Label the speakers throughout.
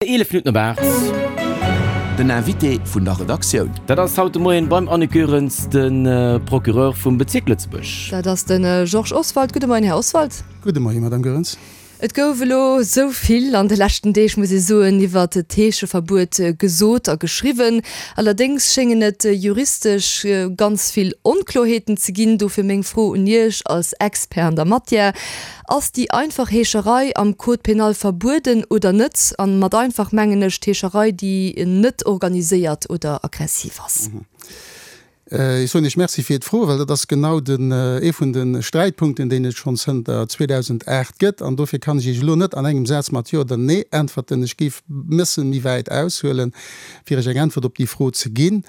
Speaker 1: 11 Minutten op 8.
Speaker 2: Den Invité vun der Redaktioun.
Speaker 1: Dat ass haut de Moien beim Annick Goerens de Procureur vum Bezierk Lëtzebuerg.
Speaker 3: Dat ass de Georges Oswald. Gudde Moien, Här Oswald.
Speaker 4: Gudde Moien, Madame Goerens.
Speaker 3: Et gouf elo esou vill an de leschten Deeg, muss ee soen, iwwert d'Heescheverbuet gesot a geschriwwen. Allerdéngs schéngen et juristesch ganz vill Onkloerheeten ze ginn. Dofir meng Fro un Iech als Expert an der Matière, Ass déi einfach Heescherei am Code pénal verbueden oder net? An mat einfach mengen ech d'Heescherei déi net organiséiert oder aggressiv ass.
Speaker 4: Ech soen Iech Merci fir d'Fro, well dat ass genau den, ee vun de Sträitpunkten, deen et schonn zënter 2008 gëtt. An dofir kann ech Iech elo net an engem Saz mat Jo oder Nee äntwerten. Ech géif e bësse méi wäit aushuelen, fir Iech eng Äntwert op déi Fro ze ginn.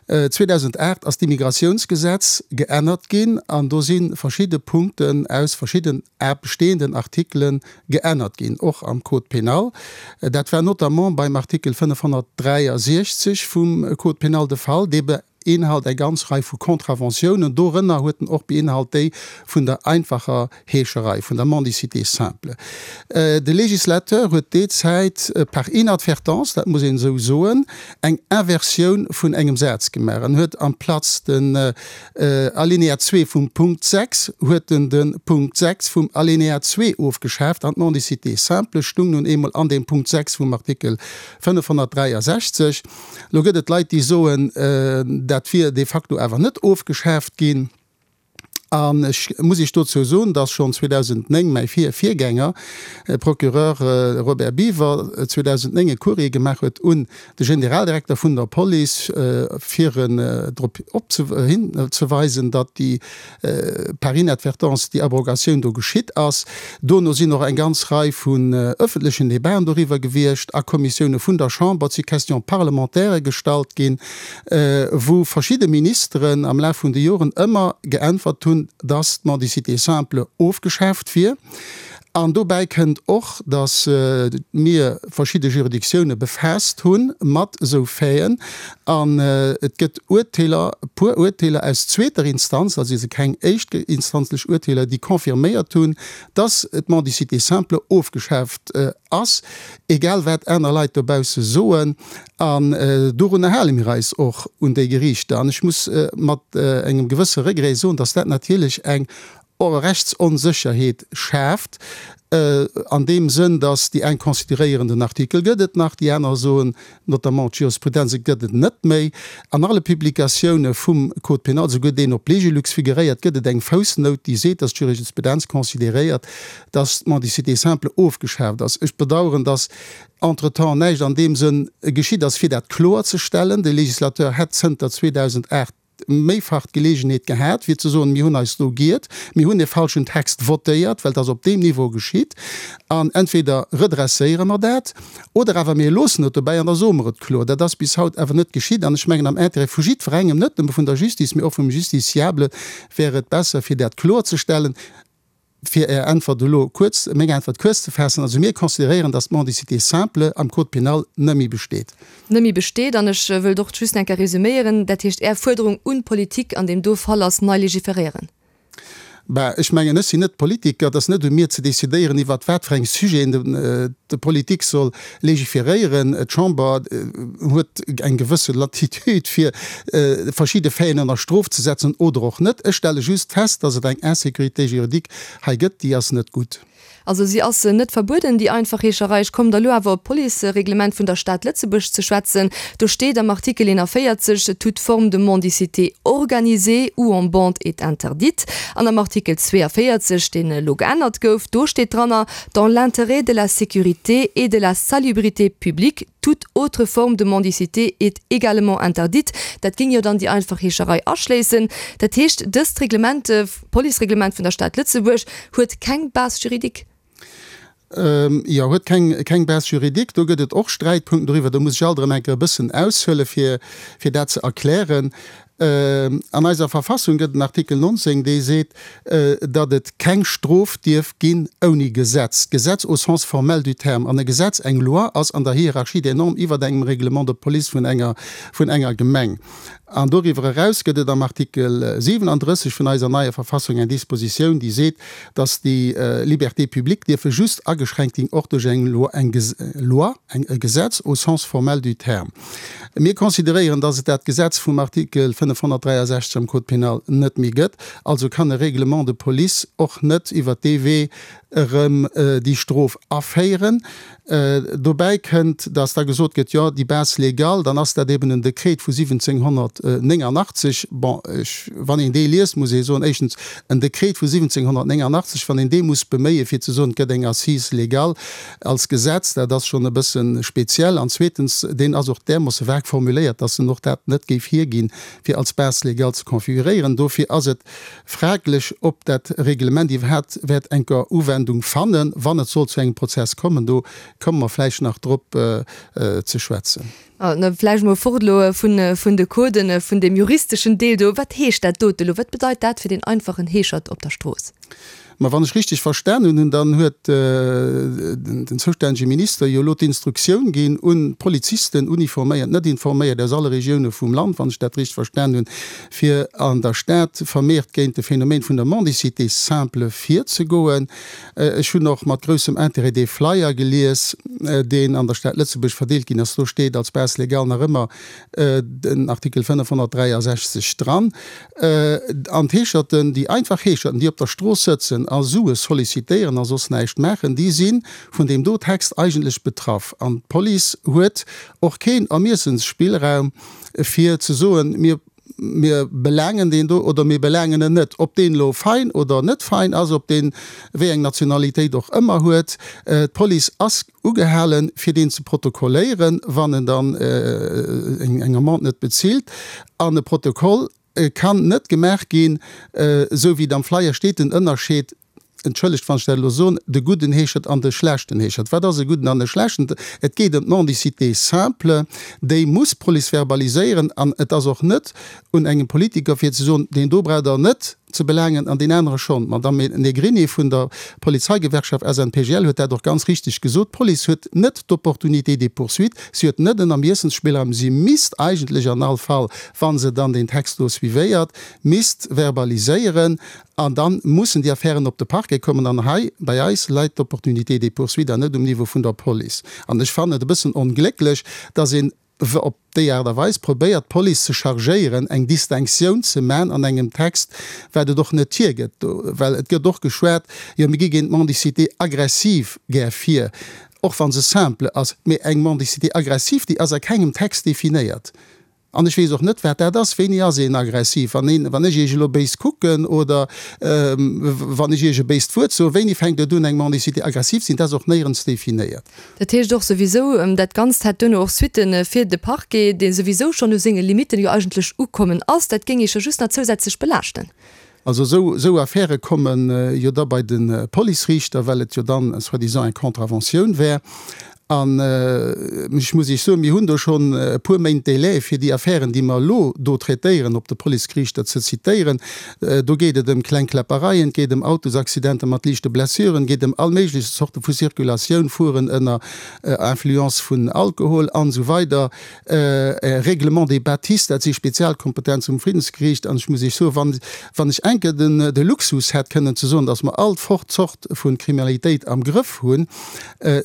Speaker 4: 2008 ass d'Immigratiounsgesetz geännert ginn an do si verschidde Punkten aus verschidden bestehenden Artikele geännert ginn, och am Code pénal. Dat war notamment beim Artikel 563 vum Code pénal de Fall. Dee beinhalt eng ganz Rei vu Contraventiounen. Dorënner huet en och beinhalt déi vun der einfacher Heescherei, vun der Mendicité simple. De Législateur huet déi Zäit par inadvertance, dat muss een esou soen, eng Inversioun vun engem Saz gemaach an huet amplaz den Alinéa 2 vum Punkt 6, huet en de Punkt 6 vum Alinéa 2 ofgeschaaft an d'Mendicité simple stung nun eemol an deem Punkt 6 vum Artikel 563. Elo gëtt et Leit, déi soen, dat wier de facto awer net ofgeschaaft ginn. An ech muss Iech dozou soen, dass schonn 2009 mäi Vir-Virgänger, Procureur Robert Biever, 2009 e Courrier gemaach huet un de Generaldirekter vun der Police, fir en drop hinzeweisen, datt déi par inadvertance déi Abrogatioun do geschitt ass. Dono sinn och eng ganz Rei vun öffentlechen Debaten doriwwer gewiescht a Kommissioune vun der Chamber. Et si Questions parlementaires gestallt ginn. wou verschidde Ministeren am Laf vun de Joren ëmmer geäntwert hunn, dass d'Mendicité simple ofgeschaaft wier. An dobäi kënnt och, dass mir verschidde Juridictioune befaasst hu mat esou Faiten. An et gëtt Urteeler, e puer Urteeler aus zweeter Instanz, also si keng éischtinstanzlech Urteeler, déi confirméiert hunn, dass d'Mendicité simple ofgeschaaft ass, egal wat aner Leit dobausse soen. An dorunner hale mir eis och, un déi Geriichter. An ech muss mat engem gewësse Regret soen, dass dat natierlech eng Rechtsonsécherheet schaaft, an deem Sënn, dass déi eng consideréieren, den Artikel gëtt et nach, déi aner soen, notamment d'Jurisprudenz, et gëtt et net méi. An alle Publikatioune vum Code pénal, souguer deen op Legilux figuréiert, gëtt et eng Foussnout, déi seet, dass d'Jurisprudenz consideréiert, dass d'Mendicité simple ofgeschaaft ass. Ech bedauern, dass entretemps näischt an deem Sënn geschitt ass, fir dat kloerzestellen. De Législateur hätt zënter 2008 méifach d'Geleegenheet gehat, fir ze soen, Mir hunn eis do giert, mir hunn e falschen Text votéiert, well et ass op deem Niveau geschitt, an entweder redresséiere mer dat oder awer mir loossen et dobäi an da soe mer et kloer. Dat ass bis haut awer net geschitt an ech mengen, am Intérêt vu jiddwerengem, net nëmme vun der Justice, mee och vum Justiciable, wär et besser, fir dat kloerzestellen. Fir Är Äntwert elo kuerz, meng Äntwert kuerz ze faassen, also mir consideréieren, dass d'Mendicité simple am Code pénal net méi besteet.
Speaker 3: Net méi besteet. An ech wëllt och just eng Kéier resüméieren, dat heescht, Är Fuerderung un d'Politik an deem do Fall ass, nei légiféréieren.
Speaker 4: Bah, ech mengen, ech sinn net Politiker, et ass net u mir ze decidéieren, iwwert wat fir eng Sujeten d'Politik soll Légiféréieren. D'Chamber huet eng gewësse Latitude, fir verschidde Faiten ënner Strof ze setzen oder och net. Ech stelle just fest, dass et eng Insécurité juridique hei gëtt, déi ass net gutt.
Speaker 3: Also si ass net verbueden, déi einfach Heescherei. Ech kommen da lo awer op d'Policereglement vun der Stad Lëtzebuerg ze schwätzen. Do steet am Artikel 41, Toute forme de mendicité organisée ou en bande est interdite. An am Artikel 42, deen elo geännert gouf, do steet dranner, Dans l'intérêt de la sécurité et de la salubrité publique, toute autre forme de mendicité est également interdite. Dat géing jo dann déi einfach Heescherei aschléissen. Dat heescht, dëst Reglement, Policereglement vun der Stad Lëtzebuerg, huet keng Base juridique?
Speaker 4: Jo, huet keng Base juridique. Do gëtt et och Sträitpunkten doriwwer. Do muss ech alt erëm eng Kéier e bëssen aushuelen, fir dat ze erklären. An eiser Verfassung gëtt en Artikel 19, dee seet, datt et keng Strof dierf ginn ouni Gesetz. Gesetz au sens formel du terme. An e Gesetz, eng Loi, ass an der Hierarchie des normes iwwert engem Règlement de police vun enger, vun enger Gemeng. An doriwwer eraus gëtt et am Artikel 37 vun eiser neier Verfassung eng Dispositioun, déi seet, datt déi Libertés publiques dierfe just ageschränkt ginn och duerch eng Loi, eng Loi, eng, e Gesetz au sens formel du terme. Mir consideréieren, dass et dat Gesetz vum Artikel 563 am Code pénal net méi gëtt. Also kann e Règlement de police och net iwwert dee Wee erëm déi Strof aféieren. Dobäi kënnt, dass da gesot gëtt, jo, déi Base légale, dann ass dat eben en Dekret vu 1789. Bon, ech, wann een dee liest, muss ee soen, éischtens, en Dekret vu 1789, wann een dee muss beméien, fir ze soen, et gëtt eng Assise légale, Als Gesetz, dat ass schonn e bësse speziell. An zweetens, deen ass och därmoosse vag formuléiert, dass en och dat net géif hierginn, fir als Base légale ze configuréieren. Dofir ass et fraglech, ob dat Reglement iwwerhaapt wäert enker Uwendung fannen, wann et sollt zu engem Prozess kommen. Do komme mer vläicht nach drop ze schwätzen.
Speaker 3: Vläicht emol fort elo vun de Coden, vun deem juristeschen Deel do. Wat heescht dat dote elo? Wat bedeit dat fir deen einfachen Heeschert op der Strooss?
Speaker 4: Ma wann ech richteg verstanen hunn, dann huet den zoustännege Minister jo elo d'Instruktioun ginn un d'Polizisten, uniforméiert, net informéiert, aus alle Regioune vum Land, wann ech dat richteg verstan hunn, fir an der Stad vermehrt géint de Phänomen vun der Mendicité simple virzegoen. Ech hunn och mat groussem Intérêt dee Flyer gelies, deen an der Stad Lëtzebuerg verdeelt ginn ass. Do steet als Base légale nach ëmmer den Artikel 563 dran. An d'Heescherten, déi einfach Heescherten, déi op der Strooss sëtzen a Sue sollicitéieren a soss näischt maachen, déi si vun deem do Text eigentlech betraff. An d'Police huet och keen Ermiessensspillraum, fir ze soen, mir mir belaangen deen do oder mir belaangen en net. Ob deen elo fein oder net fein ass, ob deen wéi eng Nationalitéit och ëmmer huet, d'Police ass ugehalen, fir deen ze protokolléieren, wann en dann eng Amende net bezilt. An e Protokoll kann net gemaach ginn, esou wéi et am Flyer steet, den Ënnerscheed, entschëllegt wann ech dat elo soen, de gudden Heeschert an de schlechten Heeschert. Wat ass e gudden an e schlechten? Et geet ëm d'Mendicité simple, déi muss d'Police verbaliséieren an et ass och net un engem Politiker fir ze soen, deen do braucht Der net ze belaangen an deen anere schonn. D'Madame Negrini vun der Polizeigewerkschaft SNPGL huet dat och ganz richteg gesot, D'Police huet net d'Opportunité des poursuites, si huet net en Ermiessensspillraum, si misst eigentlech an all Fall, wa se dann deen Text do suivéiert, misst verbaliséieren An da mussen déi Affären op de Parquet kommen. An hei bei eis läit d'Opportunité des poursuites an net um Niveau vun der Police. An ech fannen et e bëssen onglécklech, dass een op déi Aart a Weis probéiert, d'Police ze chargéieren, eng Distinctioun ze man an engem Text, wat et och net hiergëtt. Well et gëtt och geschwat, jo mir gi géint d'Mendicité aggressive gär vir, och wa se simple ass. Mee eng Mendicité aggressive, déi ass a kengem Text definéiert. An ech weess och net, wat dat ass. Wéini ass een aggressiv? Wann een, wann ech Iech elo béis kucken oder wann ech Iech e béist Wuert soen, wéini fänkt et un, eng Mendicité aggressiv ze sinn? Dat ass och néierens definéiert.
Speaker 3: Dat heescht och souwisou, dat Ganzt hätt duerno och Suitte fir de Parquet, dee souwisou schonn u senge Limitten jo eigentlech ukommen ass. Dat géing Iech jo just nach zousätzlech belaaschten.
Speaker 4: Also esou, esou Affäre komme jo da bei de Policeriichter, well et jo dann soi-disant eng Contraventioun wär. An ech muss Iech soen, mir hunn do schonn e puer Méint Délai, fir déi Affären, déi mer elo do traitéieren, op de Policeriichter ze zitéieren. Do geet et ëm kleng Kläppereien, et geet ëm Autosaccidenter mat liichte Blessuren, et geet ëm all méiglech Zorte vu Circulatioun, Fueren ënner Influence vun Alkohol an esou weider. Règlement des bâtisses, dat si Spezialkompetenze vum Friddensgeriicht. An ech muss Iech soen, wann, wann ech eng Kéier den, de Luxus hätt kënnen ze soen, datt mer all Zort vu Kriminalitéit am Grëff hunn,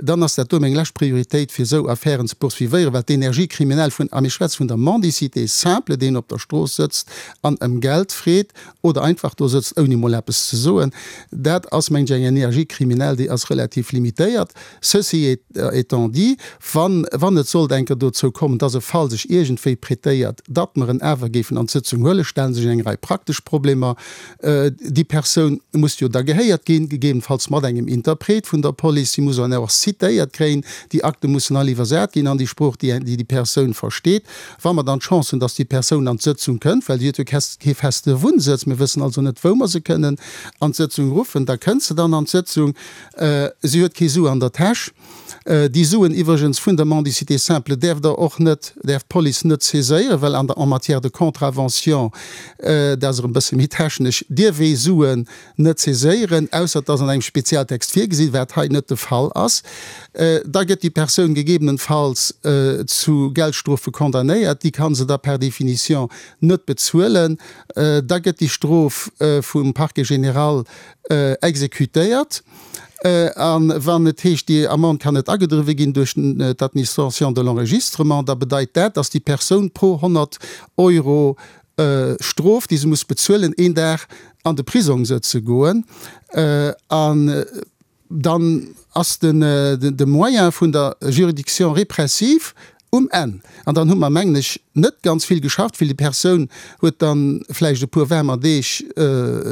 Speaker 4: dann ass dat do meng lescht Prioritéit, fir esou Affären ze poursuivéieren, well d'Energie criminelle vun, a mir schwätze vun der Mendicité simple, deen op der Strooss sëtzt an ëm Geld freet oder einfach do sëtzt ouni mol eppes ze soen, dat ass, mengen ech, eng Energie criminelle, déi ass relativ limitéiert. Ceci étant dit, wann, wann et sollt eng Kéier dozou kommen, dass e Fall sech iergendwéi prêtéiert, datt mer en awer géifen an d'Sëtzung huelen, stelle sech eng Rei praktesch Problemer. Déi Persoun muss jo da gehéiert ginn, gegebenfalls mat engem Interpret vun der Police. Si muss dann och citéiert kréien. Déi Akte mussen all iwwersat ginn an déi Sprooch, déi déi Persoun versteet. Wa mer dann d'Chance hunn, dass déi Persoun an d'Sëtzung kënnt, well si huet jo kee feste Wunnsëtz, mir wëssen also net, wou mer se kënnen an d'Sëtzung ruffen, da kënnt se dann an d'Sëtzung. Si huet kee Su an der Täsch. Déi Suen iwwregens vun der Mendicité simple däerf Der och net, däerf d'Police net saiséieren, well an der, en matière de contravention, dat ass erëm e bësse méi technesch, dierf ee Suen net saiséieren, ausser et ass an engem Spezialtext virgesinn, wat hei net de Fall ass. Da gëtt déi Persoun gegebenenfalls zu Geldstrofe condamnéiert, déi ka se da per définition net bezuelen. Da gëtt déi Strof vum Parquet général exécutéiert. A wann et heescht, déi Amende kann net agedriwwe ginn duerch d'Administration de l'enregistrement, da bedeit dat, dass déi Persoun pro 100 Euro Strof, déi se muss bezuelen, een Dag an de Prisong sëtze goen. An dann ass de Moyen vun der Juridiction répressive Um Enn, an dann hu mer, mengen ech, net ganz vill geschafft, well déi Persoun huet dann vläicht e puer waarmer Deeg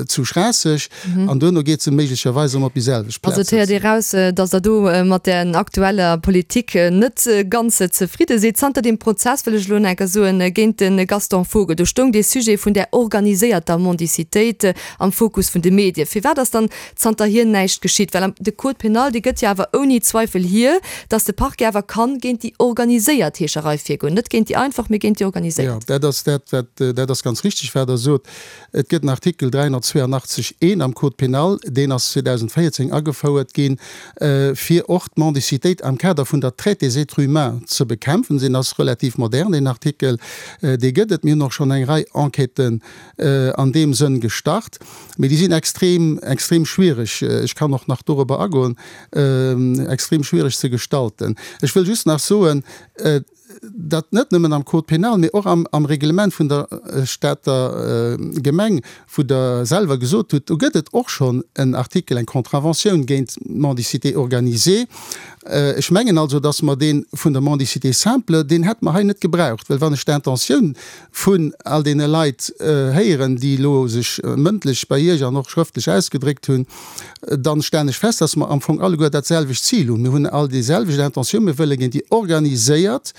Speaker 4: zu Schraasseg an duerno geet se méiglecherweis erëm op déi selwecht
Speaker 3: Plaz. Also et héiert ee raus, datt Der do mat där aktueller Politik net ganz zefridde sidd. Zanter deem Prozess, wëll ech elo nach eng Kéier soen, géint de Gaston Vogel, do stoung dee Sujet vun där organiséierter Mendicitéit am Fokus vun de Medien. Firwat ass dann zanterhier näischt geschitt, well de Code pénal, dee gëtt jo awer ouni Zweifel hier, datt de Parquet awer kann géint déi organiséiert Heescherei virgoen, net géint déi einfach, mee géint déi organiséiert.
Speaker 4: Jo, dat ass dat, wat, dat ass ganz richtig, wat Der sot. Et gëtt en Artikel 382 I am Code pénal, deen ass 2014 agefouert ginn, fir och d'Mendicitéit am Kader vun der Traite des êtres humains ze bekämpfen. Deen ass relativ modern, deen Artikel, dee gëtt et. Mir hunn och schonn eng Rei Enquêten an deem Sënn gestart. Mee déi sinn extrem, extrem schwierig, ech kann och nach dorobber agoen, extrem schwierig ze gestalten. Ech wëll just nach soen, datt net nëmmen am Code pénal, mee och am, am Reglement vun der Stater Gemeng, wou Der selwer gesot hutt, do gëtt et och schonn en Artikel, eng Contraventioun géint d'Mendicité organisée. Ech mengen also, datt mer dee vun der Mendicité simple, deen hätte mer hei net gebraucht, well wann ech d'Intentioun vun all deene Leit héieren, déi elo sech mëndlech bei Iech an och schrëftlech ausgedréckt hunn, dann stellen ech fest, dass mer am Fong alleguer dat selwecht Zil hunn. Mir hunn all déi selwecht Intentioun, Mir wëlle géint déi organiséiert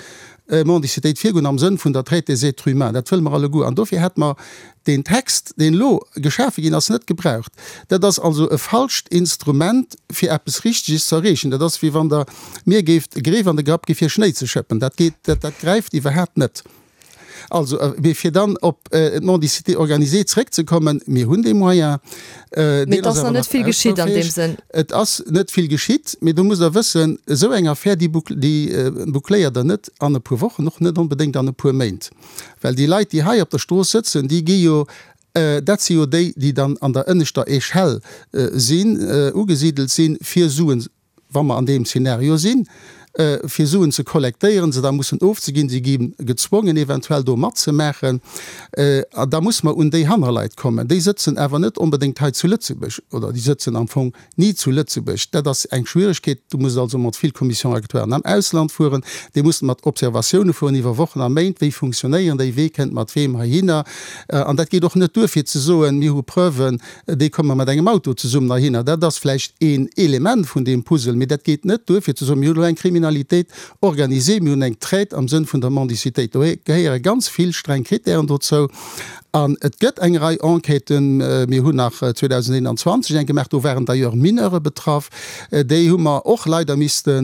Speaker 4: Mendicitéit virgoen am Sënn vun der Traite des êtres humains. Dat wëlle mer alleguer. An dofir hätt mer deen Text, deen elo geschafe ginn ass, net gebraucht. Dat ass also e falscht Instrument, fir eppes Richteges ze erreechen. Dat ass, wéi wann Der mir géift e Greef an de Grapp gi fir Schnéi ze schëppen. Dat geet, dat gräift iwwerhaapt net. Also, mee fir dann op d'Mendicité organisée zréckzekommen, mir hunn dee Moyen.
Speaker 3: Mee et ass nach net vill geschitt an deem Sënn.
Speaker 4: Et ass net vill geschitt, mee do musst Der wëssen, esou eng Affär, déi boucléiert Der net an e puer Wochen, och net onbedéngt an e puer Méint. Well déi Leit, déi hei op der Strooss sëtzen, déi gi jo, dat si jo déi, déi dann an der ënneschter Échelle sinn, ugesidelt sinn, fir Suen wa mer an deem Szenario sinn, fir Suen ze kollektéieren, se da mussen ofzeginn, si gi gezwongen eventuell do matzemaachen, a da muss mer un déi Hannerleit kommen. Déi sëtzen awer net onbedéngt hei zu Lëtzebuerg, oder déi sëtzen am Fong ni zu Lëtzebuerg. Dat ass eng Schwieregkeet. Du muss also mat vill Commission-régulatoiren am Ausland fueren, déi mussen mat Observatioune fueren iwwer Wochen a Méint, wéi funktionéieren déi, wee kënnt mat weem heihinner. An dat geet och net duer fir ze soen, mir hu Preuven, Déi komme mat engem Auto zesummen heihinner. Dat ass vläicht een Element vun deem Puzzle, mee dat geet net duer fir ze soen, mir hunn elo eng Kriminalitéit organisée, mir hunn eng Traite am Sënn vun der Mendicitéit. Do gehéiere ganz vill streng Kritären dozou. An et gëtt eng Rei Enquêten. Mir hunn nach 2021 eng gemaach, do waren d'ailleurs Mineure betraff. Déi hu mer och leider misste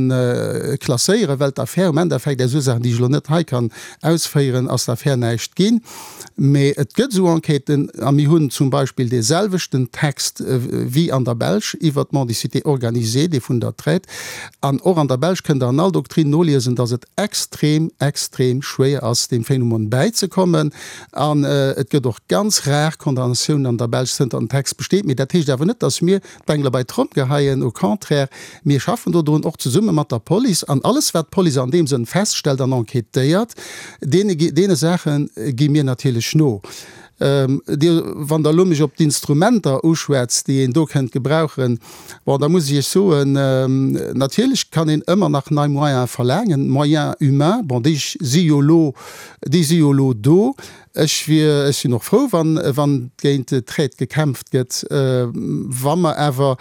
Speaker 4: klasséieren, well d'Affär um Endeffekt, aus Ursaachen, déi ech elo net hei kann ausféieren, ass d'Affär näischt ginn. Mee et gëtt esou Enquêten, a mir hunn zum Beispill dee selwechten Text wéi an der Belsch iwwert d'Mendicité organisée, dee vun der Traite. An och an der Belsch kënnt Der an all Doktrin noliesen, datt et extrem, extrem schwéier ass, deem Phänomen bäizekommen. An et gëtt och ganz rar Condamnatiounen an der Belsch, zënter den Text besteet. Mee dat heescht awer net, datt mir d'Bengele bei d'Tromm geheien. Au contraire, mir schaffen dodrun, och zesumme mat der Police. An alles, wat d'Police an deem Sënn feststellt an enquêtéiert, deene, deene Saache gi mir natierlech no. Dir, wann Der elo mech op d'Instrumenter uschwätzt, déi een do kënnt gebrauchen, bon, da muss ech Iech soen, natierlech kann een ëmmer nach nei Moyene verlaangen, Moyens humains, bon, déi si jo elo, déi si jo elo do. Ech wier, ech sinn och frou, wann, wann géint d'Traite gekämpft gëtt. Wa mer awer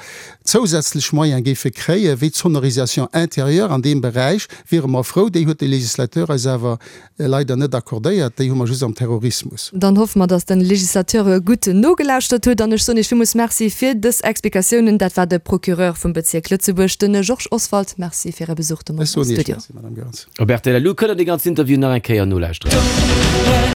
Speaker 4: zousätzlech Moyene géife kréien, wéi d'Sonorisation intérieure an deem Beräich, wiere mer frou. Déi huet de Législateur eis awer leider net accordéiert. Déi hu mer just am Terrorismus.
Speaker 3: Dann hoffe mer, dass de Législateur gutt nogelauschtert huet. An ech soen Iech villmools Merci fir dës Explikatiounen. Dat war de Procureur vum Bezierk Lëtzebuerg, de Georges Oswald. Merci fir Äre Besuch de
Speaker 4: Moien
Speaker 3: am
Speaker 4: Ech soen Iech
Speaker 3: Studio.
Speaker 4: Merci, Madame Goerens.
Speaker 1: Op rtl Lu kënnt der dee ganzen Interview nach eng Kéier nolauschteren.